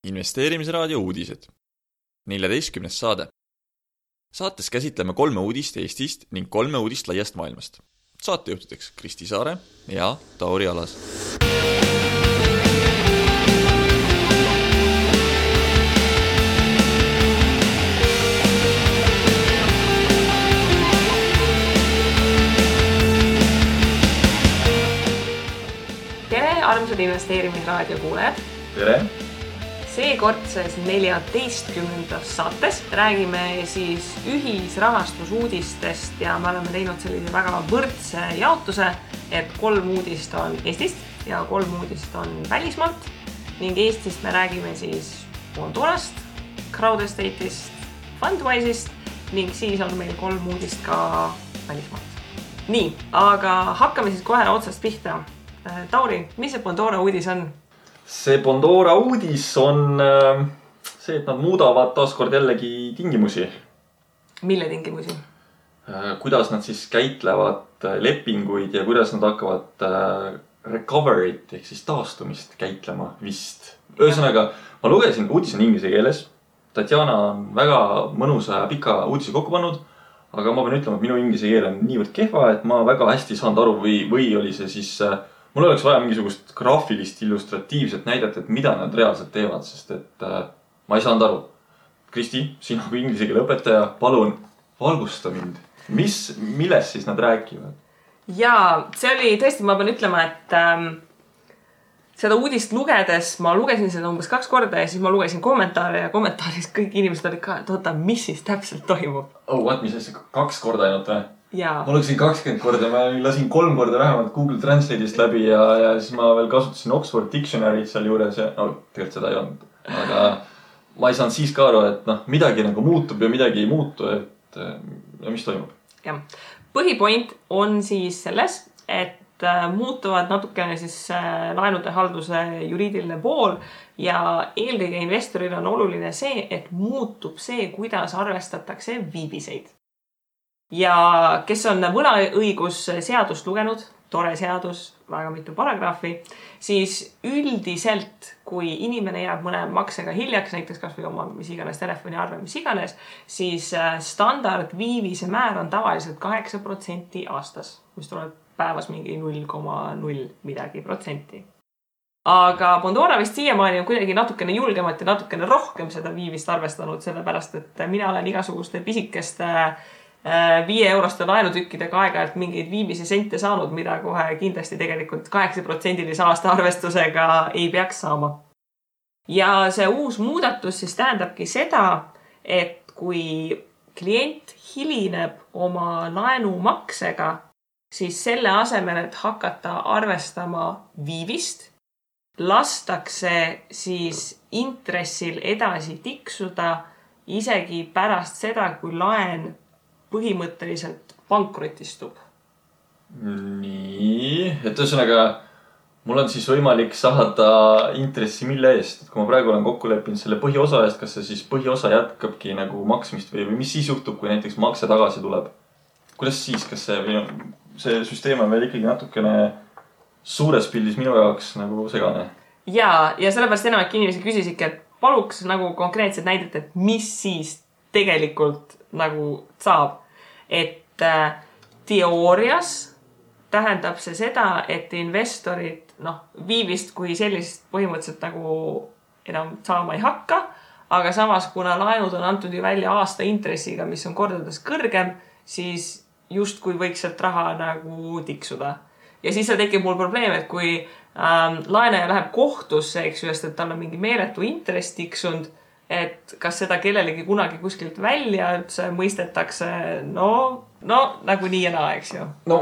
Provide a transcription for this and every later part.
Investeerimisraadio uudised. 14. saade. Saates käsitleme 3 uudist Eestist ning 3 uudist laiast maailmast. Saatejuhtideks Kristi Saare ja Tauri Alas. Tere, armsad investeerimisraadio kuulajad! Tere! Seekordses 14. saates räägime siis ühisrahastusuudistest ja me oleme teinud sellise väga võrdse jaotuse, et 3 uudist on Eestist ja 3 uudist on välismaalt ning Eestist me räägime siis Bondorast, Crowdestate'ist, Fundwise'ist ning siis on meil 3 uudist ka välismaalt. Nii, aga hakkame siis kohe otsast pihta. Tauri, mis see Bondora uudis on? See Bondora uudis on see, et nad muudavad taaskord jällegi tingimusi. Mille tingimusi? Kuidas nad siis käitlevad lepinguid ja kuidas nad hakkavad recovery't ehk siis taastumist käitlema vist. Ühesõnaga, ma lugesin, uudis on inglise keeles. Tatjana on väga mõnusa ja pika uudise kokku pannud, aga ma pean ütlema, et minu inglise keel on niivõrd kehva, et ma väga hästi saanud aru või oli see siis... Mul oleks vaja mingisugust graafilist illustratiivset näidet, et mida nad reaalselt teevad, sest et ma ei saanud aru. Kristi, sina kui inglise keele õpetaja, palun valgusta mind. Milles siis nad räägivad? Jaa, see oli tõesti, ma pean ütlema, et seda uudist lugedes, ma lugesin seda umbes 2 korda ja siis ma lugesin kommentaare ja kommentaaris kõik inimesed olid ka, et oota, mis siis täpselt toimub? Mis asja, 2 korda ainult või? Jaa. Ma lugesin 20 korda, ma lasin 3 korda vähemalt Google Translate'ist läbi ja siis ma veel kasutasin Oxford Dictionary't seal juures ja tegelikult seda ei olnud. Aga ma ei saanud siis ka aru, et midagi nagu muutub ja midagi ei muutu, et mis toimub. Ja. Põhipoint on siis selles, et muutuvad natukene siis laenude halduse juriidiline pool ja eelkõige investoril on oluline see, et muutub see, kuidas arvestatakse viibiseid. Ja kes on võlaõigusseadust lugenud, tore seadus, väga mitu paragrahvi, siis üldiselt, kui inimene jääb mõne maksega hiljaks, näiteks kas või oma mis iganes telefoniarve, mis iganes, siis standard viivise määr on tavaliselt 8% aastas, mis tuleb päevas mingi 0,0 midagi protsenti. Aga Bondora vist siiamaani on kuidagi natukene julgemat ja natukene rohkem seda viivist arvestanud, sellepärast et mina olen igasuguste pisikeste 5-euroste laenutükkidega aega-ajalt mingeid viimisi sente saanud, mida kohe kindlasti tegelikult 8%-lise aasta arvestusega ei peaks saama. Ja see uus muudatus siis tähendabki seda, et kui klient hilineb oma laenumaksega, siis selle asemel, et hakata arvestama viivist, lastakse siis intressil edasi tiksuda isegi pärast seda, kui laen põhimõtteliselt pankrotistub. Nii, et ühesõnaga, mul on siis võimalik saada intressi mille eest. Et kui ma praegu olen kokku leppinud selle põhiosa eest, kas see siis põhiosa jätkabki nagu maksmist või mis siis juhtub, kui näiteks makse tagasi tuleb? Kuidas siis, kas see süsteem on veel ikkagi natukene suures pildis minu jaoks nagu segane? Ja sellepärast enamik inimesi küsisidki, et paluks nagu konkreetset näidet, et mis siis tegelikult nagu saab. Et teoorias tähendab see seda, et investorid viivist kui sellist põhimõtteliselt nagu enam saama ei hakka, aga samas kuna laenud on antud ju välja aasta intressiga, mis on kordades kõrgem, siis justkui võiks sealt raha nagu tiksuda. Ja siis see tekib mul probleem, et kui laenaja läheb kohtusse, eks ju, et tal on mingi meeletu intress tiksunud, et kas seda kellelegi kunagi kuskilt välja üldse mõistetakse, nagu nii ja naa, eks ju. No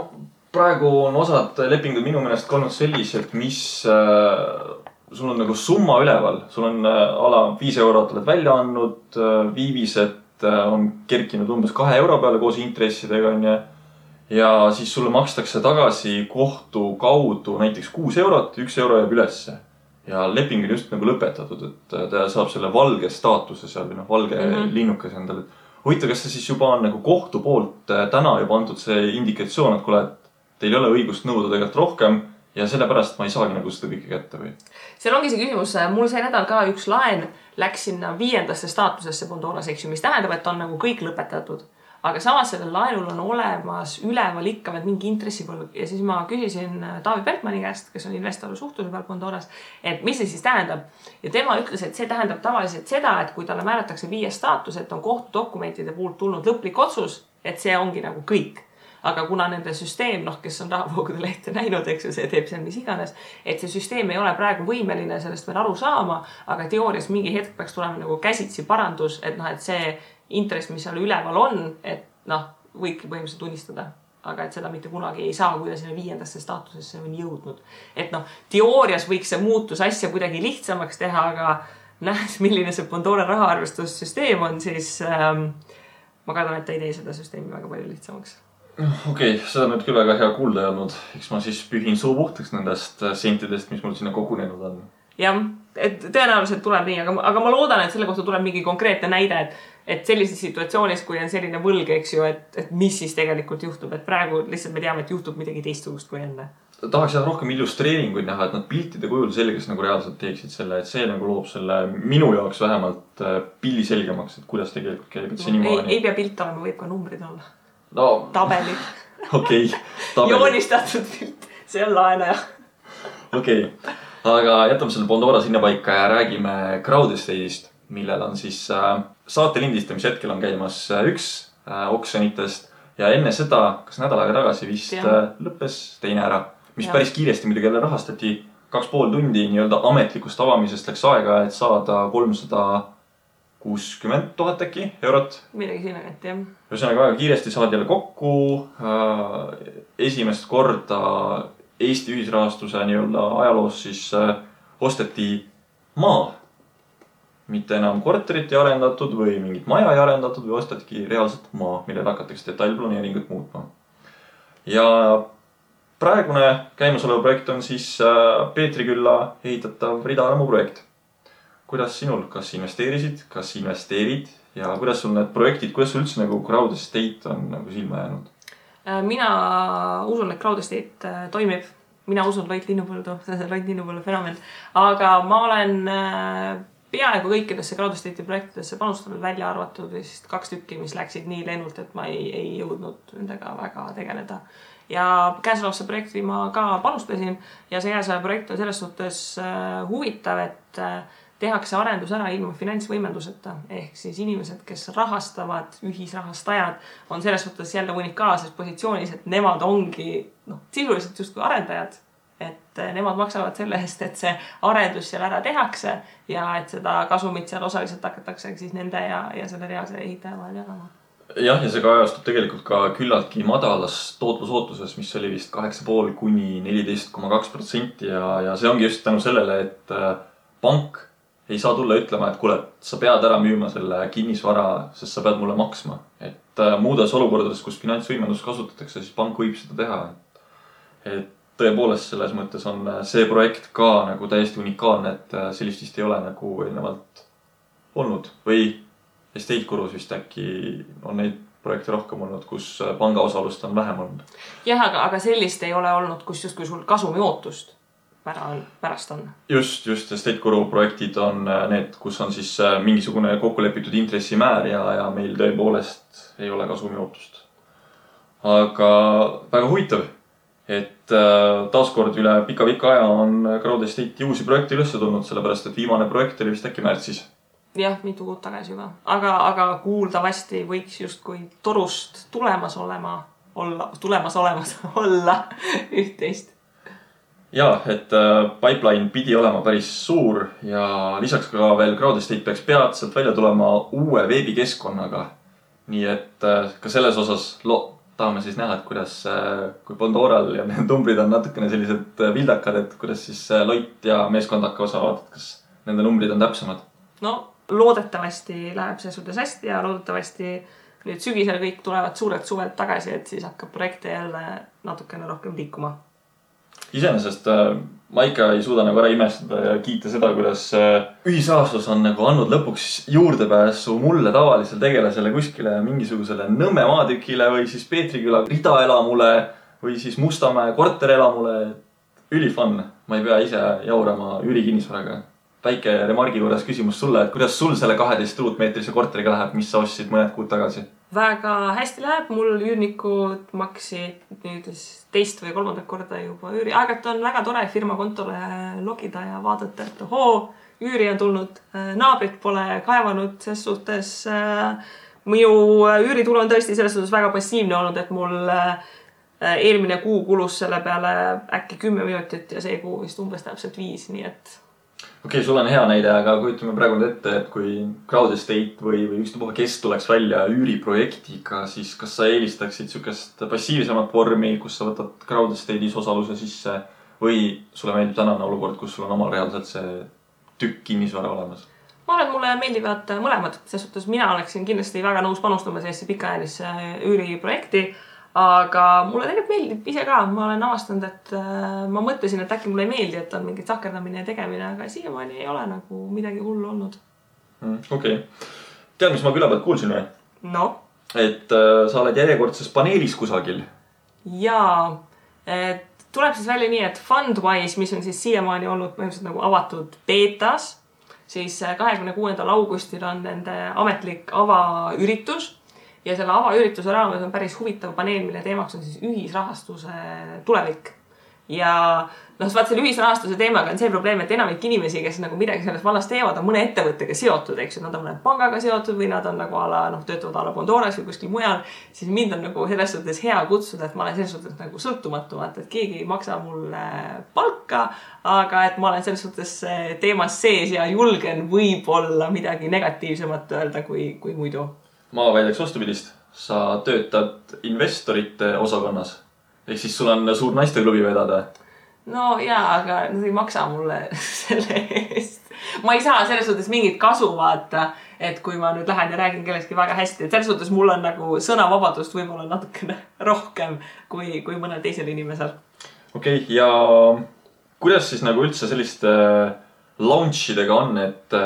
praegu on osad lepingud minu meelest olnud sellised, mis sul on nagu summa üleval. Sul on ala 5 eurot oled välja andnud, viivised on kerkinud umbes 2 euro peale koos intressidega ja siis sulle makstakse tagasi kohtu kaudu näiteks 6 eurot, 1 euro jääb ülesse. Ja leping on just nagu lõpetatud, et ta saab selle valge staatuse seal või valge linnukas endale. Huvitav, kas see siis juba on nagu kohtu poolt täna juba antud see indikatsioon, et kuule, et teil ei ole õigust nõuda tegelikult rohkem ja sellepärast ma ei saagi nagu seda kõike kätte või? Seal ongi see küsimus, mul see nädal ka üks laen läks sinna 5. staatusesse Bondoras, eks ju, mis tähendab, et on nagu kõik lõpetatud. Aga samas sellel laenul on olemas üleval ikka veel mingi intressipõlg ja siis ma küsisin Taavi Bertmani käest, kes on investori suhtluse peal Bondoras, et mis see siis tähendab. Ja tema ütles, et see tähendab tavaliselt seda, et kui talle määratakse 5. staatus, et on kohtudokumentide puhult tulnud lõplik otsus, et see ongi nagu kõik. Aga kuna nende süsteem, kes on rahavoogude lehte näinud, eks ju, see teeb seal mis iganes, et see süsteem ei ole praegu võimeline sellest veel aru saama, aga teoorias mingi hetk peaks tulema nagu käsitsi parandus, et see intress, mis seal üleval on, et võibki põhimõtteliselt tunnistada, aga et seda mitte kunagi ei saa, kui ta sinna 5. staatusesse on jõudnud. Et teoorias võiks see muutus asja kuidagi lihtsamaks teha, aga nähes, milline see Bondora rahaarvestussüsteem on, siis ma kardan, et ta ei tee seda süsteemi väga palju lihtsamaks. Okei, seda nüüd küll väga hea kuulda ei olnud. Eks ma siis pühin suu puhtaks nendest sentidest, mis mul sinna kogunenud on. Jah, et tõenäoliselt tuleb nii, aga ma loodan, et selle kohta tuleb mingi konkreetne näide, et sellises situatsioonis, kui on selline võlg, eks ju, et mis siis tegelikult juhtub, et praegu lihtsalt me teame, et juhtub midagi teistsugust kui enne. Tahaks rohkem illustreeringuid näha, et nad piltide kujul selges nagu reaalselt teeksid selle, et see nagu loob selle minu jaoks vähemalt pilli selgemaks, et kuidas tegelikult käib, et see niimoodi. Ei pea pilt olema, võib ka numbrid olla. No, tabeli. Okei. Joonistatud pilt, see on laenaja. Okei. Aga jätame selle Bondora sinna paika ja räägime Crowdestate'ist, millel on siis saate lindistamise hetkel on käimas üks oksjonitest ja enne seda, kas nädal aega tagasi vist lõppes teine ära, mis päris kiiresti muidugi jälle rahastati 2,5 tundi nii-öelda ametlikust avamisest läks aega, et saada 360 000 äkki eurot. Midagi sinna kätte, jah. Ühesõnaga väga kiiresti saadi jälle kokku esimest korda Eesti ühisrahastuse nii-öelda ajaloos siis osteti maa. Mitte enam korterit ei arendatud või mingit maja ei arendatud või ostetki reaalselt maa, millel hakatakse detailplaneeringut muutma. Ja praegune käimasolev projekt on siis Peetrikülla ehitatav Ridaalamu projekt. Kuidas sinul, kas investeerisid, kas investeerid ja kuidas sul need projektid, kuidas sul üldse nagu Crowdestate on nagu silma jäänud? Mina usun, et Crowdestate toimib. Mina usun Loit Linnupõldu, see on Loit Linnupõldu fenomen. Aga ma olen peaaegu kõikidesse Crowdestate'i projektidesse panustanud välja arvatud vist 2 tükki, mis läksid nii lennult, et ma ei jõudnud nendega väga tegeleda. Ja käesolevasse projekti ma ka panustasin ja see projekt on selles suhtes huvitav, et tehakse arendus ära ilma finantsvõimenduseta. Ehk siis inimesed, kes rahastavad, ühisrahastajad, on selles suhtes jälle unikaalses positsioonis, et nemad ongi sisuliselt justkui arendajad. Et nemad maksavad selle eest, et see arendus seal ära tehakse ja et seda kasumit seal osaliselt hakatakse siis nende ja selle reaalse ehitaja vahel jagama. Jah, ja see kajastub tegelikult ka küllaltki madalas tootlusootuses, mis oli vist 8,5 kuni 14,2% ja see ongi just tänu sellele, et pank ei saa tulla ütlema, et kuule, sa pead ära müüma selle kinnisvara, sest sa pead mulle maksma. Et muudes olukordades, kus finantsvõimendust kasutatakse, siis pank võib seda teha. Et tõepoolest selles mõttes on see projekt ka nagu täiesti unikaalne, et sellist vist ei ole nagu eelnevalt olnud. Või Estate Gurus vist äkki on neid projekte rohkem olnud, kus panga osalust on vähem olnud. Jah, aga sellist ei ole olnud, kus justkui sul kasumi ootust pärast on. Just Estate Guru projektid on need, kus on siis mingisugune kokkulepitud intressimäär ja meil tõepoolest ei ole kasumi ootust. Aga väga huvitav, et taaskord üle pika aja on Crowdestate'i uusi projekte üles tulnud, sellepärast et viimane projekt oli vist äkki märtsis. Jah, mitu kuud tagasi juba. Aga kuuldavasti võiks justkui torust tulemas olla üht-teist. Ja, et pipeline pidi olema päris suur ja lisaks ka veel Crowdestate peaks peatselt välja tulema uue veebikeskkonnaga. Nii et ka selles osas tahame siis näha, et kuidas, kui Bondoral ja need numbrid on natukene sellised vildakad, et kuidas siis Loit ja meeskond hakkavad saavad, kas nende numbrid on täpsemad. No, loodetavasti läheb see suhtes hästi ja loodetavasti nüüd sügisel kõik tulevad suurelt suvelt tagasi, et siis hakkab projekte jälle natukene rohkem liikuma. Iseenesest ma ikka ei suuda nagu ära imestada ja kiita seda, kuidas ühisrahastus on nagu andnud lõpuks juurdepääsu mulle tavalisele tegelasele kuskile mingisugusele Nõmme maatükile või siis Peetriküla ridaelamule või siis Mustamäe korterelamule. ülifun, ma ei pea ise jaurama üürikinnisvaraga. Väike remargi juures küsimus sulle, et kuidas sul selle 12 ruutmeetrise korteriga läheb, mis sa ostsid mõned kuud tagasi? Väga hästi läheb, mul üürnikud maksid nüüd teist või kolmandat korda juba üüri. Aegalt on väga tore firma kontole logida ja vaadata, et üüri on tulnud, naabrid pole kaevanud, ses suhtes minu üüritulu on tõesti selles suhtes väga passiivne olnud, et mul eelmine kuu kulus selle peale äkki 10 minutit ja see kuu vist umbes täpselt 5, nii et... Okei, sul on hea näide, aga kujutame praegu ette, et kui Crowd Estate või ükstapuha kes tuleks välja üüriprojektiga, siis kas sa eelistaksid sükest passiivsemat vormi, kus sa võtad Crowd Estate'is osaluse sisse või sulle meeldib tänane olukord, kus sul on omal reaalselt see tükk kinnisvara olemas? Ma arvan, et mulle meeldivad mõlemad. Selles suhtes mina oleksin kindlasti väga nõus panustama sellesse pikaajalisse üüriprojekti, aga mulle tegelikult meeldib ise ka. Ma olen avastanud, et ma mõtlesin, et äkki mulle ei meeldi, et on mingit sakerdamine ja tegemine, aga siiamaani ei ole nagu midagi hullu olnud. Okei. Tead, mis ma küla pealt kuulsin või? No? Et sa oled järjekordses paneelis kusagil. Jaa. Tuleb siis välja nii, et Fundwise, mis on siis siiamaani olnud põhimõtteliselt nagu avatud beetas, siis 26. augustil on nende ametlik avaüritus. Ja selle avaürituse raames on päris huvitav paneel, mille teemaks on siis ühisrahastuse tulevik. Ja vaat selle ühisrahastuse teemaga on see probleem, et enamik inimesi, kes nagu midagi selles vallas teevad, on mõne ettevõttega seotud, eks ju. Nad on mõne pangaga seotud või nad on nagu töötavad ala Bondoras või kuskil mujal. Siis mind on nagu selles suhtes hea kutsuda, et ma olen selles suhtes nagu sõltumatu, et keegi ei maksa mulle palka, aga et ma olen selles suhtes teemas sees ja julgen võib-olla midagi negatiivsemat öelda kui muidu. Ma väidaks vastupidist. Sa töötad investorite osakonnas. Ehk siis sul on suur naisteklubi vedada. No jaa, aga nad ei maksa mulle selle eest. Ma ei saa selles suhtes mingit kasu vaata, et kui ma nüüd lähen ja räägin kelleski väga hästi. Et selles suhtes mul on nagu sõnavabadust võib-olla natukene rohkem kui mõnel teisel inimesel. Okei, ja kuidas siis nagu üldse selliste launchidega on, et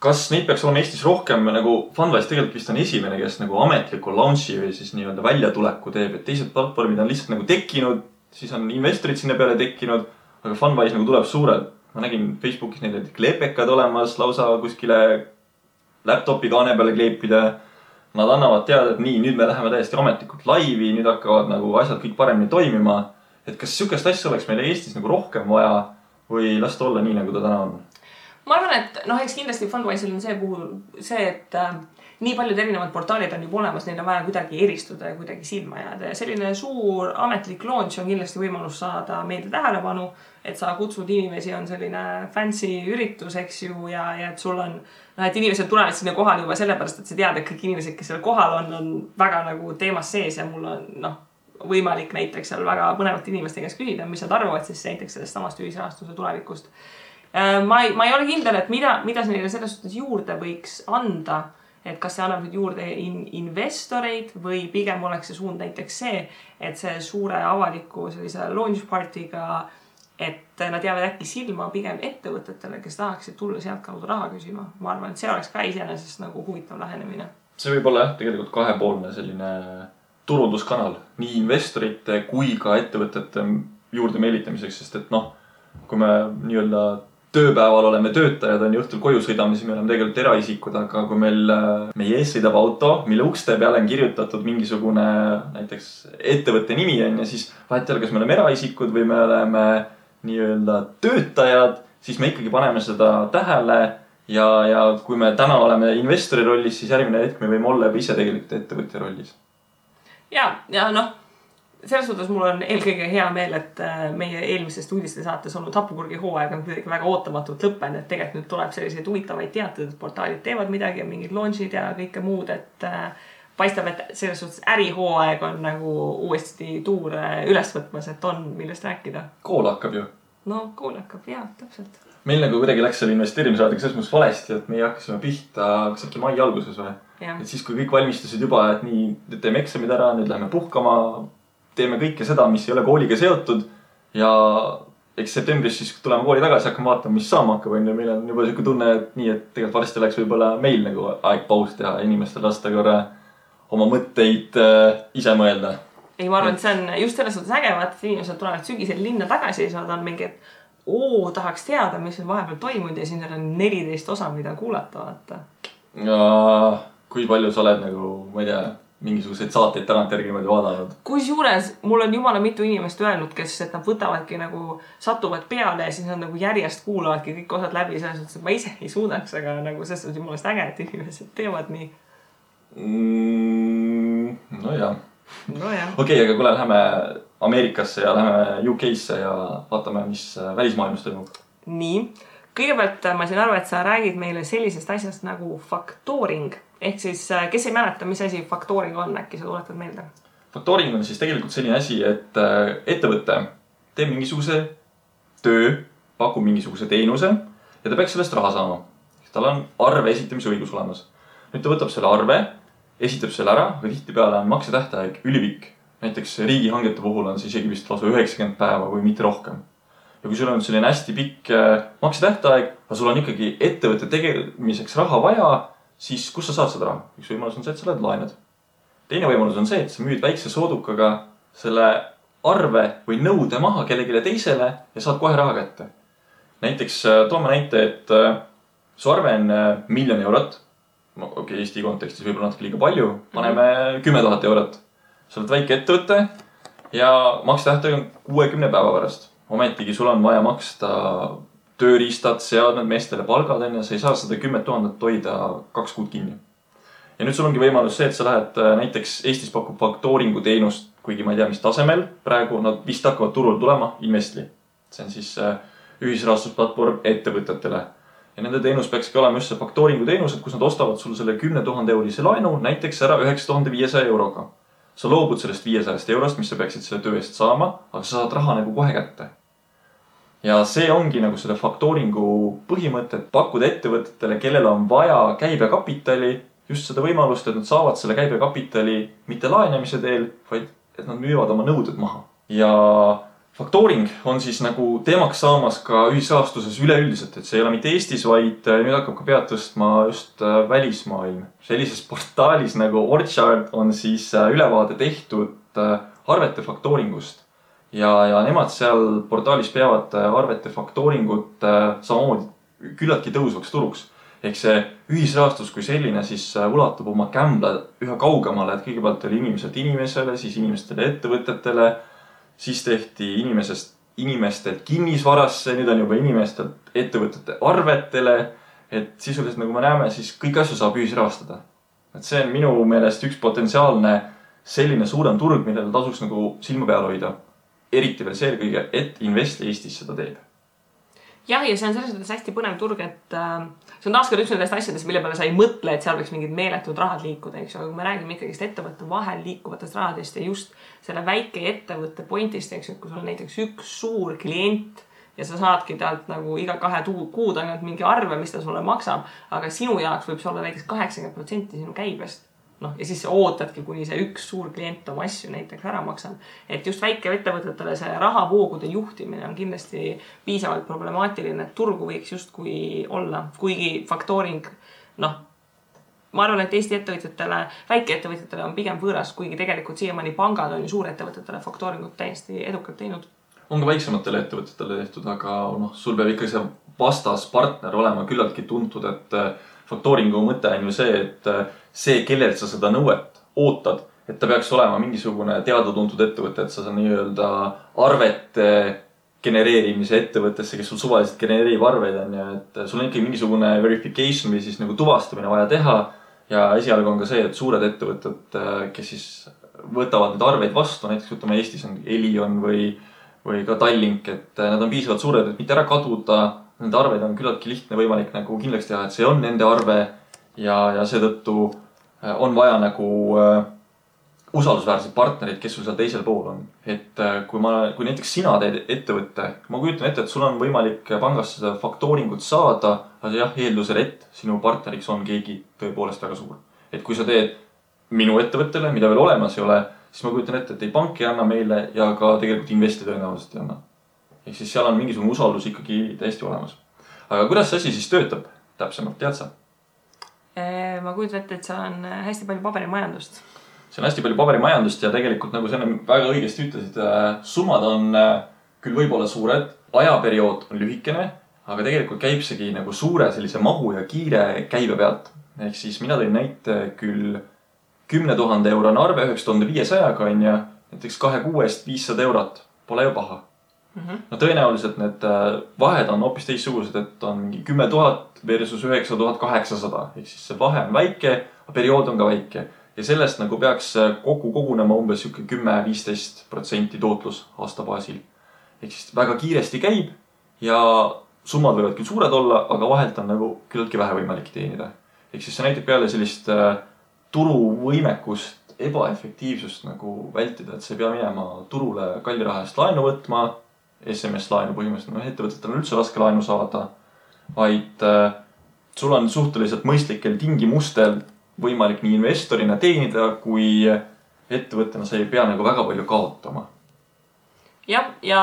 kas neid peaks olema Eestis rohkem, nagu Fundwise tegelikult vist on esimene, kes nagu ametliku launchi või siis nii-öelda väljatuleku teeb, et teised platvormid on lihtsalt nagu tekkinud, siis on investorid sinna peale tekkinud, aga Fundwise nagu tuleb suurelt. Ma nägin Facebookis neil kleepekad olemas, lausa kuskile laptopi kaane peale kleepida. Nad annavad teada, et nii, nüüd me läheme täiesti ametlikult laivi, nüüd hakkavad nagu asjad kõik paremini toimima. Et kas sükest asja oleks meile Eestis nagu rohkem vaja või lasta olla nii, nagu ta täna on? Ma arvan, et eks kindlasti Fundwise'il on see, et nii paljud erinevad portaalid on juba olemas, neil on vaja kuidagi eristuda ja kuidagi silma jääda. Ja selline suur ametlik launch on kindlasti võimalus saada meelde tähelepanu, et sa kutsud inimesi, on selline fancy üritus, eks ju, ja et sul on, et inimesed tulevad sinna kohal juba sellepärast, et sa tead, et kõik inimesed, kes seal kohal on väga nagu teemas sees ja mul on võimalik näiteks seal väga põnevate inimeste käest küsida, mis nad arvavad siis näiteks sellest samast ühisrahastuse tulevikust. Ma ei ole kindel, et mida see neile selles suhtes juurde võiks anda, et kas see annab nüüd juurde investoreid või pigem oleks see suund näiteks see, et see suure avaliku sellise launch partiga, et nad jäävad äkki silma pigem ettevõtetele, kes tahaksid tulla sealt kaudu raha küsima. Ma arvan, et see oleks ka iseenesest nagu huvitav lähenemine. See võib olla tegelikult kahepoolne selline turunduskanal nii investorite kui ka ettevõtete juurde meelitamiseks, sest et kui me nii-öelda tööpäeval oleme töötajad, on õhtul koju sõidame, siis me oleme tegelikult eraisikud, aga kui meie ees sõidab auto, mille ukste peale on kirjutatud mingisugune näiteks ettevõtte nimi on ja siis vahet ei ole, kas me oleme eraisikud või me oleme nii-öelda töötajad, siis me ikkagi paneme seda tähele ja kui me täna oleme investori rollis, siis järgmine hetk me võime olla ise tegelikult ettevõtja rollis. Ja selles suhtes mul on eelkõige hea meel, et meie eelmisest uudiste saates olnud Hapupurgi hooaeg on kuidagi väga ootamatult lõppenud, et tegelikult nüüd tuleb selliseid huvitavaid teateid, et portaalid teevad midagi ja mingid launchid ja kõike muud, et paistab, et selles suhtes ärihooaeg on nagu uuesti tuur üles võtmas, et on millest rääkida. Kool hakkab ju. Kool hakkab, jah, täpselt. Meil nagu kuidagi läks selle investeerimisraadiga selles mõttes valesti, et meie hakkasime pihta äkki mai alguses või? Et siis, kui kõik valmistusid juba, et nii, nüüd teeme eksamid ära, nüüd läheme puhkama, teeme kõike seda, mis ei ole kooliga seotud ja eks septembris siis tuleme kooli tagasi, hakkame vaatama, mis saama hakkab. Meil on juba selline tunne, et nii, et tegelikult varsti läks võib-olla meil nagu aeg paus teha inimestel lasta korra oma mõtteid ise mõelda. ei, ma arvan, et see on just selles suhtes äge, et inimesed tulevad sügisel linna tagasi ja nad on mingi, et tahaks teada, mis on vahepeal toimunud ja siin on 14 osa, mida kuulata, vaata. Ja kui palju sa oled nagu, ma ei tea, mingisuguseid saateid tagantjärgi vaadanud? Kusjuures mul on jumala mitu inimest öelnud, kes et nad võtavadki nagu, satuvad peale ja siis nad nagu järjest kuulavadki kõik osad läbi, selles suhtes, et ma ise ei suudaks, aga nagu selles suhtes jumalast äge, et inimesed teevad nii. No jah. Okei, aga kuule, läheme Ameerikasse ja läheme UK-sse ja vaatame, mis välismaailmas toimub. Nii. Kõigepealt ma siin arvan, et sa räägid meile sellisest asjast nagu factoring. Ehk siis, kes ei mäleta, mis asi factoring on, äkki sa tuletad meelde? Factoring on siis tegelikult selline asi, et ettevõte teeb mingisuguse töö, pakub mingisuguse teenuse ja ta peaks sellest raha saama. Tal on arve esitamise õigus olemas. Nüüd ta võtab selle arve, esitab selle ära, aga tihtipeale on maksetähtaeg ülipikk. Näiteks riigihangete puhul on see isegi vist lausa 90 päeva või mitte rohkem. Ja kui sul on selline hästi pikk maksetähtaeg, aga sul on ikkagi ettevõtte tegemiseks raha vaja, siis kus sa saad seda raha? Üks võimalus on see, et sa oled laenad. Teine võimalus on see, et sa müüd väikse soodukaga selle arve või nõude maha kellegile teisele ja saad kohe raha kätte. Näiteks toome näite, et su arve on 1 000 000 eurot. Okei, Eesti kontekstis võib-olla natuke liiga palju. Paneme 10 000 eurot. Sa oled väike ettevõte ja maksetähtaeg on 60 päeva pärast. Ometigi sul on vaja maksta tööriistad, seadmed, meestele palgad on ja sa ei saa seda 10 000 hoida 2 kuud kinni. Ja nüüd sul ongi võimalus see, et sa lähed näiteks Eestis pakub factoringu teenust, kuigi ma ei tea, mis tasemel. Praegu nad vist hakkavad turul tulema Investli. See on siis ühisrahastusplatvorm ettevõtetele. Ja nende teenus peakski olema just see factoringu teenus, et kus nad ostavad sul selle 10 000 eurose laenu näiteks ära 9500 euroga. Sa loobud sellest 500 eurost, mis sa peaksid selle töö eest saama, aga sa saad raha nagu kohe kätte. Ja see ongi nagu selle factoringu põhimõte, et pakkuda ettevõtetele, kellel on vaja käibekapitali, just seda võimalust, et nad saavad selle käibekapitali mitte laenamise teel, vaid et nad müüvad oma nõuded maha. Ja factoring on siis nagu teemaks saamas ka ühisrahastuses üleüldiselt, et see ei ole mitte Eestis, vaid nüüd hakkab ka pead tõstma just välismaailm. Sellises portaalis nagu Orchard on siis ülevaade tehtud arvete factoringust. Ja nemad seal portaalis peavad arvete factoringut samamoodi küllaltki tõusvaks turuks. Ehk see ühisrahastus kui selline siis ulatub oma kämbla üha kaugemale, et kõigepealt oli inimeselt inimesele, siis inimestele ettevõtetele, siis tehti inimestelt kinnisvarasse, nüüd on juba inimestelt ettevõtete arvetele, et sisuliselt nagu me näeme, siis kõik asju saab ühisrahastada. Et see on minu meelest üks potentsiaalne selline suurem turg, millele tasuks nagu silma peal hoida. Eriti veel see kõige, et Investli Eestis seda teeb. Jah, ja see on selles mõttes hästi põnev turg, et see on taaskord üks nendest asjadest, mille peale sa ei mõtle, et seal võiks mingid meeletud rahad liikuda, eks ju. Aga kui me räägime ikkagist ettevõtte vahel liikuvatest rahadest ja just selle väike ettevõtte pointist, eks ju, kui sul on näiteks üks suur klient ja sa saadki talt nagu iga 2 kuud ainult mingi arve, mis ta sulle maksab, aga sinu jaoks võib see olla näiteks 80% sinu käibest. Ja siis ootadki, kuni see üks suur klient oma asju näiteks ära maksab. Et just väike ettevõtetele see rahavoogude juhtimine on kindlasti piisavalt problemaatiline, et turgu võiks just kui olla. Kuigi factoring, ma arvan, et Eesti ettevõtjatele, väikeettevõtjatele on pigem võõras, kuigi tegelikult siiamaani pangad on ju suurettevõtetele factoringut täiesti edukalt teinud. On ka väiksematele ettevõtetele tehtud, aga sul peab ikka see vastaspartner olema küllaltki tuntud, et factoringu mõte on ju see, et see, kellelt sa seda nõuet ootad, et ta peaks olema mingisugune teada-tuntud ettevõte, et sa nii-öelda arvete genereerimise ettevõttesse, kes sul suvaliselt genereerib arveid on ja et sul on ikkagi mingisugune verification või siis nagu tuvastamine vaja teha ja esialgu on ka see, et suured ettevõtted, kes siis võtavad need arveid vastu, näiteks võtame Eestis on Elion või ka Tallink, et nad on piisavalt suured, et mitte ära kaduda, nende arveid on küllaltki lihtne võimalik nagu kindlaks teha, et see on nende arve ja seetõttu on vaja nagu usaldusväärsed partnerid, kes sul seal teisel pool on. Et kui näiteks sina teed ettevõtte, ma kujutan ette, et sul on võimalik pangast seda factoringut saada, aga jah, eeldusel, et sinu partneriks on keegi tõepoolest väga suur. Et kui sa teed minu ettevõttele, mida veel olemas ei ole, siis ma kujutan ette, et ei pank ei anna meile ja ka tegelikult Investi tõenäoliselt ei anna. Ehk siis seal on mingisugune usaldus ikkagi täiesti olemas. Aga kuidas see asi siis töötab täpsemalt, tead sa? Ma kujutan ette, et seal on hästi palju paberimajandust. see on hästi palju paberimajandust ja tegelikult nagu sa väga õigesti ütlesid, summad on küll võib-olla suured, ajaperiood on lühikene, aga tegelikult käib seegi nagu suure sellise mahu ja kiire käibe pealt. Ehk siis mina tõin näite küll 10 000 eurone arve 9500-ga on ja näiteks 2 kuu eest 500 eurot. Pole ju paha. No tõenäoliselt need vahed on hoopis teissugused, et on mingi 10 000 versus 9800. Ehk siis see vahe on väike, aga periood on ka väike. Ja sellest nagu peaks kokku kogunema umbes 10-15% tootlus aasta baasil. Ehk siis väga kiiresti käib ja summad võivad küll suured olla, aga vahelt on nagu küllaltki vähe võimalik teenida. Ehk siis see näitab peale sellist turuvõimekust, ebaefektiivsust nagu vältida, et sa ei pea minema turule kalli raha eest laenu võtma, SMS-laenu põhimõtteliselt, ettevõtetel on üldse raske laenu saada, vaid sul on suhteliselt mõistlikel tingimustel võimalik nii investorina teenida, kui ettevõttena sa ei pea nagu väga palju kaotama. Jah, ja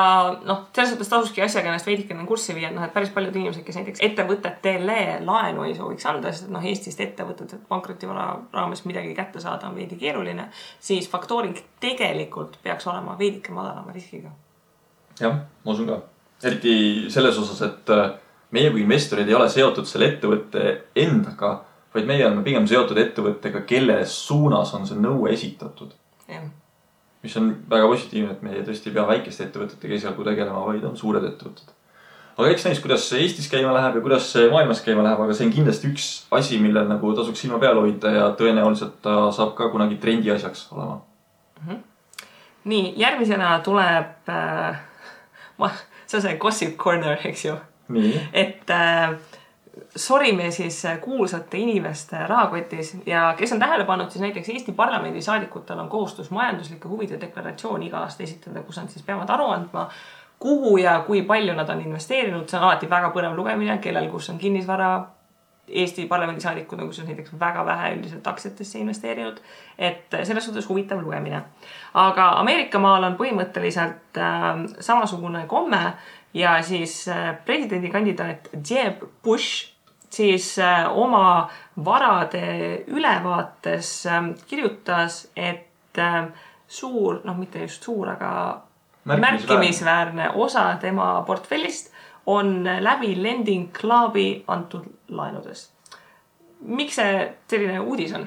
selles mõttes tasuski asjaga ennast veidikene kurssi viia, et päris paljud inimesed, kes näiteks ettevõtetele laenu ei sooviks anda, sest Eestist ettevõtted pankrotivara raames midagi kätte saada on veidi keeruline, siis faktoring tegelikult peaks olema veidike madalama riskiga. Jah, ma usun ka. Eriti selles osas, et meie kui investorid ei ole seotud selle ettevõtte endaga, vaid meie oleme pigem seotud ettevõttega, kelle suunas on see nõue esitatud. Jah. Mis on väga positiivne, et meie tõesti ei pea väikeste ettevõtetega esialgu tegelema, vaid on suured ettevõtted. Aga eks näis, kuidas Eestis käima läheb ja kuidas maailmas käima läheb, aga see on kindlasti üks asi, millel nagu tasuks silma peal hoida ja tõenäoliselt ta saab ka kunagi trendi asjaks olema. Nii, järgmisena tuleb see on see gossip corner, eks ju. Nii. Et sorime siis kuulsate inimeste rahakotis ja kes on tähele pannud, siis näiteks Eesti parlamendi saadikutel on kohustus majanduslike huvide deklaratsioon iga aasta esitada, kus nad siis peavad aru andma, kuhu ja kui palju nad on investeerinud. See on alati väga põnev lugemine, kellel kus on kinnisvara. Eesti parlamendi saadikud on kus on näiteks väga vähe üldiselt aktsiatesse investeerinud, et selles suhtes huvitav lugemine. Aga Ameerikamaal on põhimõtteliselt samasugune komme ja siis presidendikandidaat Jeb Bush siis oma varade ülevaates kirjutas, et suur, mitte just suur, aga märkimisväärne osa tema portfellist on läbi Lending Clubi antud laenudest. Miks see selline uudis on?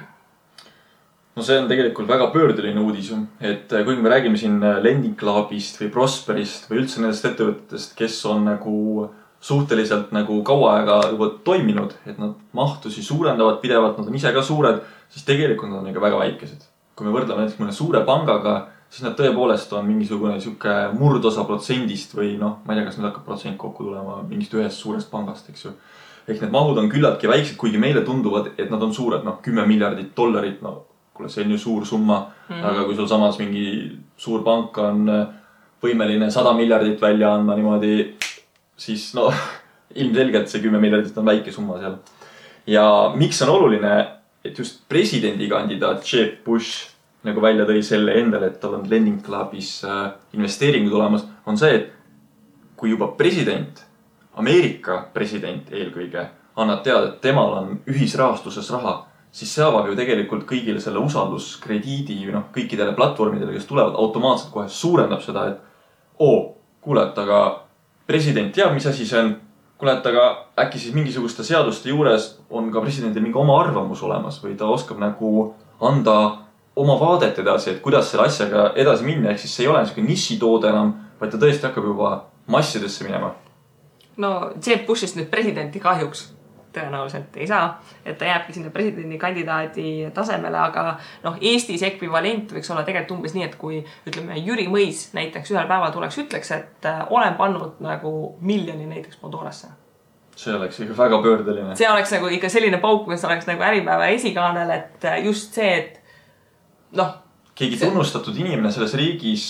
No see on tegelikult väga pöördeline uudis, et kui me räägime siin Lending Clubist või Prosperist või üldse nendest ettevõtetest, kes on nagu suhteliselt nagu kaua aega juba toiminud, et nad mahtusi suurendavad pidevalt, nad on ise ka suured, siis tegelikult nad on ikka väga väikesed. Kui me võrdleme näiteks mõne suure pangaga, siis nad tõepoolest on mingisugune murdosa protsendist või ma ei tea, kas nüüd hakkab protsent kokku tulema mingist ühest suurest pangast, eks ju. Ehk need mahud on küllaltki väiksed, kuigi meile tunduvad, et nad on suured, $10 miljardit, kuule, see on ju suur summa, aga kui sul samas mingi suur pank on võimeline 100 miljardit välja andma niimoodi, siis ilmselgelt see 10 miljardit on väike summa seal. Ja miks on oluline, et just presidendikandidaat Jeb Bush nagu välja tõi selle endale, et tal on Lending Clubis investeeringud olemas, on see, et kui juba president, Ameerika president eelkõige, annab teada, et temal on ühisrahastuses raha, siis see avab ju tegelikult kõigile selle usalduskrediidi kõikidele platvormidele, kes tulevad automaatselt kohe suurendab seda, et kuule, et aga president teab, mis asi see on, kuule, et aga äkki siis mingisuguste seaduste juures on ka presidendil mingi oma arvamus olemas või ta oskab nagu anda oma vaadet edasi, et kuidas selle asjaga edasi minna, ehk siis see ei ole niisugune nišitoode enam, vaid ta tõesti hakkab juba massidesse minema. No Jeb Bushist nüüd presidenti kahjuks tõenäoliselt ei saa, et ta jääbki sinna presidendikandidaadi tasemele, aga Eestis ekvivalent võiks olla tegelikult umbes nii, et kui ütleme Jüri Mõis näiteks ühel päeval ütleks, et olen pannud nagu miljoni näiteks Mondorasse. See oleks ikka väga pöördeline. See oleks nagu ikka selline pauk, mis oleks nagu Äripäeva esikaanel, et just see, et keegi tunnustatud inimene selles riigis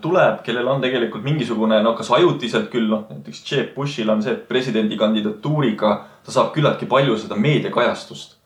tuleb, kellel on tegelikult mingisugune, kas ajutiselt küll, näiteks Jeb Bushil on see, et presidendi kandidatuuriga ta saab küllaltki palju seda meediakajastust.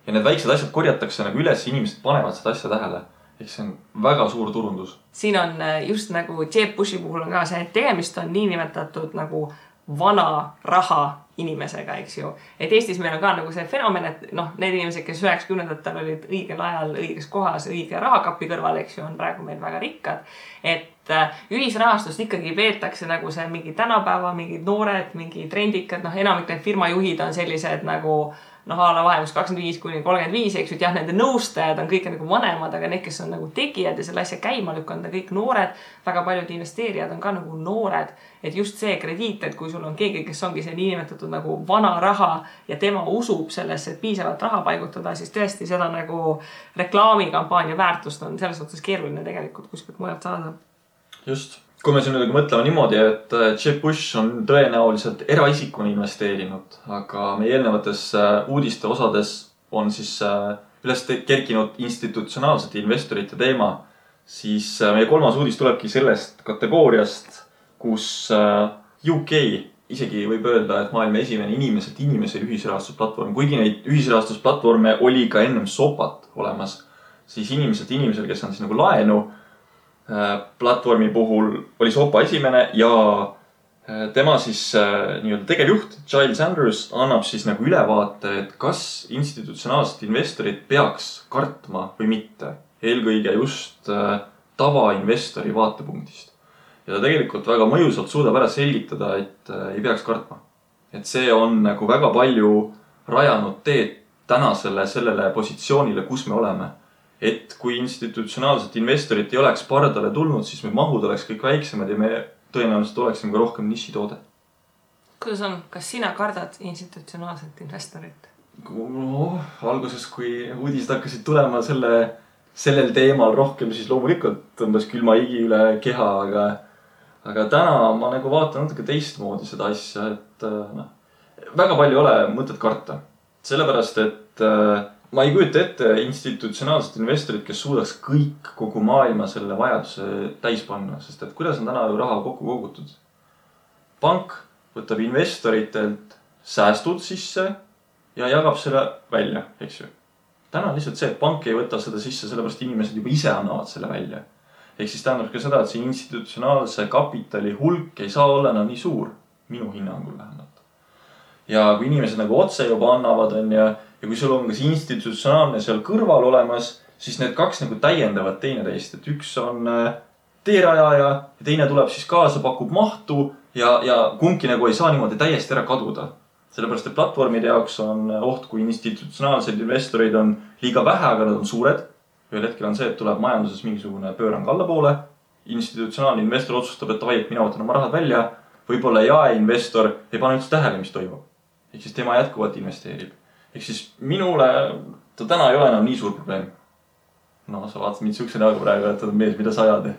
Ja need väiksed asjad korjatakse nagu üles, inimesed panevad seda asja tähele. Ehk see on väga suur turundus. Siin on just nagu Jeb Bushi puhul on ka see, et tegemist on niinimetatud nagu vana raha inimesega, eks ju. Et Eestis meil on ka nagu see fenomen, et noh, need inimesed, kes 90-ndatel olid õigel ajal, õiges kohas, õige rahakapi kõrval, eks ju, on praegu meil väga rikkad. Et ühisrahastust ikkagi peetakse nagu see mingi tänapäeva, mingid noored, mingi trendikad, noh, enamik need firmajuhid on sellised nagu noh, ala vahemus 25–35, eks ju, et jah, nende nõustajad on kõik nagu vanemad, aga need, kes on nagu tegijad ja selle asja käima lükanud, on kõik noored. Väga paljud investeerijad on ka nagu noored, et just see krediit, et kui sul on keegi, kes ongi see niinimetatud nagu vana raha ja tema usub sellesse, et piisavalt raha paigutada, siis tõesti seda nagu reklaamikampaania väärtust on selles mõttes keeruline tegelikult kuskilt mujalt saada. Just. Kui me siin mõtleme niimoodi, et Jeb Bush on tõenäoliselt eraisikuna investeerinud, aga meie eelnevates uudiste osades on siis üles kerkinud institutsionaalsete investorite teema, siis meie kolmas uudis tulebki sellest kategooriast, kus UK isegi võib öelda, et maailma esimene inimeselt inimese ühisrahastusplatvorm, kuigi neid ühisrahastusplatvorme oli ka ennem SOPAT olemas, siis inimeselt inimesel, kes on siis nagu laenu platvormi puhul oli SOPA esimene ja tema siis nii-öelda tegevjuht Giles Andrews annab siis nagu ülevaate, et kas institutsionaalsed investorid peaks kartma või mitte. Eelkõige just tavainvestori vaatepunktist. Ja ta tegelikult väga mõjusalt suudab ära selgitada, et ei peaks kartma. Et see on nagu väga palju rajanud teed tänasele sellele positsioonile, kus me oleme. Et kui institutsionaalset investorit ei oleks pardale tulnud, siis me mahud oleks kõik väiksemad ja me tõenäoliselt oleksime ka rohkem nišitoode. Kuidas on? Kas sina kardad institutsionaalset investorit? No, alguses, kui uudised hakkasid tulema sellel teemal rohkem, siis loomulikult tõmbas külma higi üle keha, aga täna ma nagu vaatan natuke teistmoodi seda asja, et väga palju ei ole mõtet karta. Sellepärast, et ma ei kujuta ette institutsionaalset investorit, kes suudaks kõik kogu maailma selle vajaduse täis panna, sest et kuidas on täna ju raha kokku kogutud? Pank võtab investoritelt säästud sisse ja jagab selle välja, eks ju. Täna on lihtsalt see, et pank ei võta seda sisse, sellepärast inimesed juba ise annavad selle välja. Ehk siis tähendab ka seda, et see institutsionaalse kapitali hulk ei saa olla nii suur, minu hinnangul vähemalt. Ja kui inimesed nagu otse juba annavad, ja kui sul on kas institutsionaalne seal kõrval olemas, siis need kaks nagu täiendavad teineteist, et üks on teerajaja ja teine tuleb siis kaasa, pakub mahtu ja kumbki nagu ei saa niimoodi täiesti ära kaduda. Sellepärast, et platvormide jaoks on oht, kui institutsionaalsed investorid on liiga vähe, aga nad on suured. Ühel hetkel on see, et tuleb majanduses mingisugune pöörang allapoole. Institutsionaalne investor otsustab, et vai, et mina võtan oma rahad välja. Võib-olla jaeinvestor ei pane üldse tähele, mis toimub. Ehk siis tema jätkuvalt investeerib. Ehk siis minule ta täna ei ole enam nii suur probleem. No, sa vaatad mind sihukese näoga praegu, et ta on mees, mida sa ajad.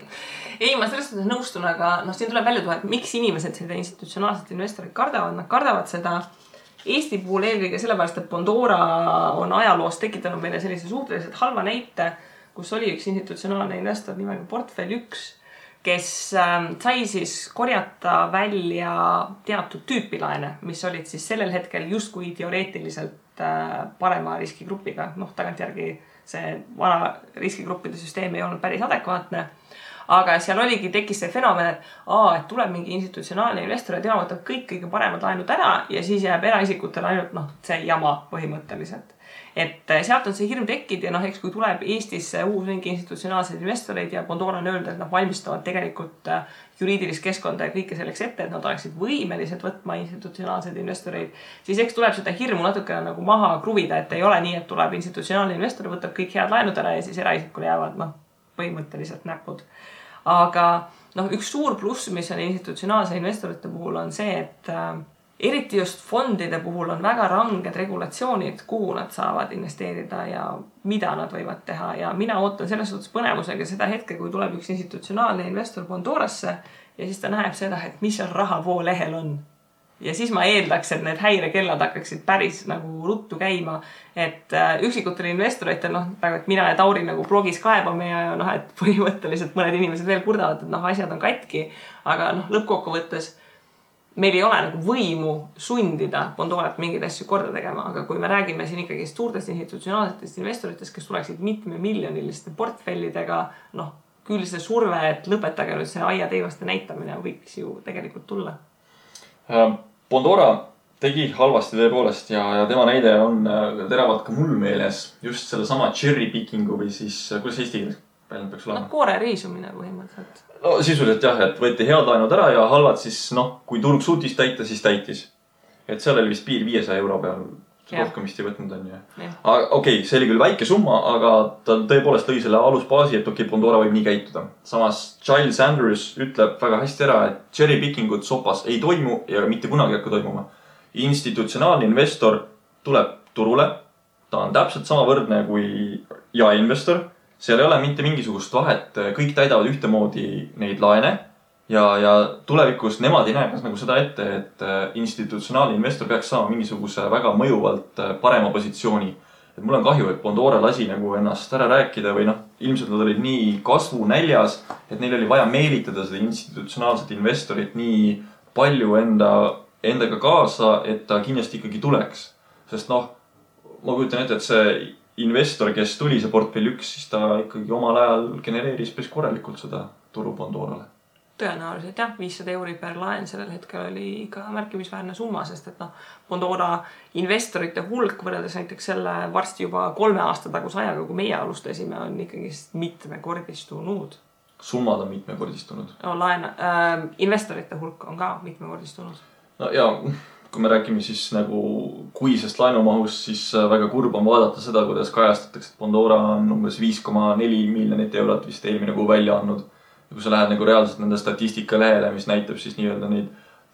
Ei, ma selles mõttes nõustun, aga siin tuleb välja tuua, et miks inimesed seda institutsionaalset investorit kardavad. Nad kardavad seda Eesti puhul eelkõige sellepärast, et Pandora on ajaloos tekitanud meile sellise suhteliselt halva näite, kus oli üks institutsionaalne investor nimega Portfell 1, kes sai siis korjata välja teatud tüüpi laene, mis olid siis sellel hetkel justkui teoreetiliselt parema riskigrupiga. Noh, tagantjärgi see vana riskigruppide süsteem ei olnud päris adekvaatne. Aga seal tekkis see fenomen, et tuleb mingi institutsionaalne investor ja tema võtab kõik kõige paremad laenud ära ja siis jääb eraisikutel ainult see jama põhimõtteliselt. Et sealt on see hirm tekkinud ja eks kui tuleb Eestisse uus mingi institutsionaalseid investoreid ja Pandora on öelnud, et nad valmistavad tegelikult juriidilist keskkonda ja kõike selleks ette, et nad oleksid võimelised võtma institutsionaalseid investoreid, siis eks tuleb seda hirmu natuke nagu maha kruvida, et ei ole nii, et tuleb institutsionaalne investor, võtab kõik head laenud ära ja siis eraisikule jäävad põhimõtteliselt näpud. Aga üks suur pluss, mis on institutsionaalse investorite puhul on see, et eriti just fondide puhul on väga ranged regulatsioonid, kuhu nad saavad investeerida ja mida nad võivad teha. Ja mina ootan selles suhtes põnevusega seda hetke, kui tuleb üks institutsionaalne investor Pandorasse ja siis ta näeb seda, et mis seal rahavoo lehel on. Ja siis ma eeldaks, et need häirekellad hakkaksid päris nagu ruttu käima, et üksikutel investoritel, et mina ja Tauri nagu blogis kaebame ja et põhimõtteliselt mõned inimesed veel kurdavad, et asjad on katki, aga lõppkokkuvõttes meil ei ole nagu võimu sundida Pandorat mingeid asju korda tegema, aga kui me räägime siin ikkagi suurtest institutsionaalsetest investoritest, kes tuleksid mitmemiljoniliste portfellidega, küll see surve, et lõpetage nüüd see aia teivaste näitamine võiks ju tegelikult tulla. Pandora tegi halvasti tõepoolest ja tema näide on teravalt ka mul meeles just selle sama cherry pickingu või siis, kuidas eesti keeles väljend peaks olema? Koore riisumine põhimõtteliselt. No sisuliselt jah, et võeti head laenud ära ja halvad siis, kui turg suutis täita, siis täitis. Et seal oli vist piir 500 euro peal. Rohkem vist ei võtnud on ju. Okei, see oli küll väike summa, aga ta tõepoolest lõi selle alusbaasi, et Pandora võib nii käituda. Samas Giles Andrews ütleb väga hästi ära, et cherry pickingut sopas ei toimu ja mitte kunagi hakka toimuma. Institutsionaalne investor tuleb turule. Ta on täpselt sama võrdne kui jaeinvestor. Seal ei ole mitte mingisugust vahet. Kõik täidavad ühtemoodi neid laene. Ja tulevikus nemad ei näe kas nagu seda ette, et institutsionaalne investor peaks saama mingisuguse väga mõjuvalt parema positsiooni. Et mul on kahju, et Pandora lasi nagu ennast ära rääkida või ilmselt nad olid nii kasvu näljas, et neil oli vaja meelitada seda institutsionaalset investorit nii palju endaga kaasa, et ta kindlasti ikkagi tuleks. Sest ma kujutan ette, et see investor, kes tuli see portfell 1, siis ta ikkagi omal ajal genereeris päris korralikult seda turu Pandorale. Tõenäoliselt jah, 500 euri per laen sellel hetkel oli ka märkimisväärne summa, sest et Pandora investorite hulk võrreldes näiteks selle varsti juba 3 aasta taguse ajaga, kui meie alustasime, on ikkagi mitmekordistunud. Summad on mitmekordistunud. Investorite hulk on ka mitmekordistunud. No ja kui me räägime siis nagu kuisest laenumahust, siis väga kurb on vaadata seda, kuidas kajastatakse, et Pandora on umbes 5,4 miljonit eurot vist eelmine kuu välja andnud. Ja kui sa lähed nagu reaalselt nende statistika lehele, mis näitab siis nii-öelda neid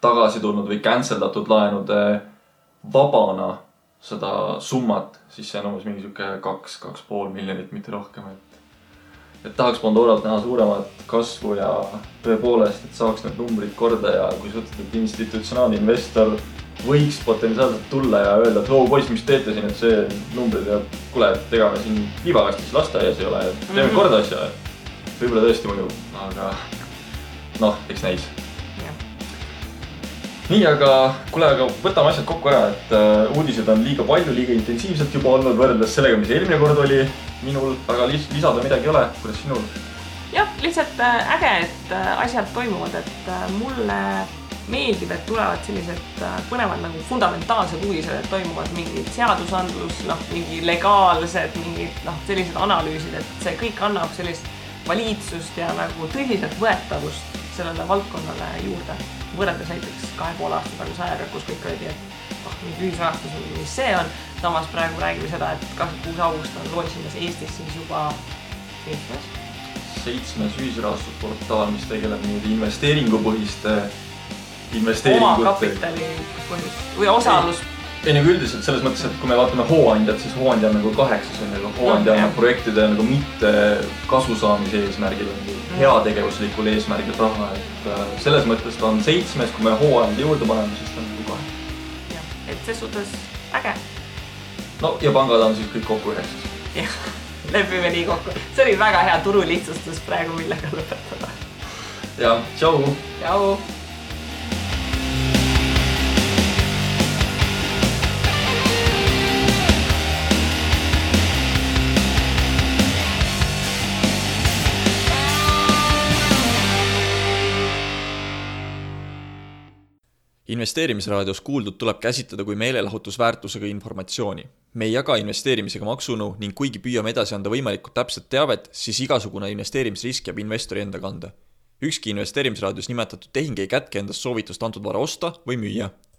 tagasi tulnud või canceldatud laenude vabana seda summat, siis see on umbes mingi 2,5 miljonit, mitte rohkem. Et tahaks Pandoralt näha suuremat kasvu ja tõepoolest, et saaks need numbrid korda ja kui sa ütled, et institutsionaalne investor võiks potentsiaalselt tulla ja öelda, et poiss, mis teete siin, et see numbrid ja kuule, et ega me siin liivakastis lasteaias ei ole, et teeme korda asja. Võib-olla tõesti mõju, aga eks näis. Nii, aga võtame asjad kokku ära, et uudised on liiga palju, liiga intensiivselt juba olnud võrreldes sellega, mis eelmine kord oli minul, aga lisada midagi ei ole, kuidas sinul? Jah, lihtsalt äge, et asjad toimuvad, et mulle meeldib, et tulevad sellised põnevad nagu fundamentaalsed uudised, et toimuvad mingid seadusandlus, mingi legaalsed, mingid sellised analüüsid, et see kõik annab sellist valitsust ja nagu tõsiselt võetavust sellele valdkonnale juurde. Võrreldes näiteks 2,5 aasta taguse ajaga, kus kõik olid, et mingi ühisrahastus, mis see on. Samas praegu räägime seda, et 26. august on loosimas Eestis siis juba 7. ühisrahastusportaal, mis tegeleb investeeringupõhiste investeeringute. Oma kapitali põhjus või osalus. Ei nagu üldiselt selles mõttes, et kui me vaatame hooandjad, siis hooandja on nagu 8, aga hooandja on projektide nagu mitte kasu saamise eesmärgil, heategevuslikul eesmärgil raha. Et selles mõttes ta on 7, kui me hooandja juurde paneme, siis ta on nagu 8. Jah, et see suhtes äge. No ja pangad on siis kõik kokku 9. Jah, lepime nii kokku. See oli väga hea turu lihtsustus praegu, millega lõpetada. Ja, tšau! Tšau! Investeerimisraadios kuuldud tuleb käsitleda kui meelelahutusväärtusega informatsiooni. Me ei jaga investeerimisega maksunõu ning kuigi püüame edasi anda võimalikult täpset teavet, siis igasugune investeerimisrisk jääb investori enda kanda. Ükski investeerimisraadios nimetatud tehing ei kätke endast soovitust antud vara osta või müüa.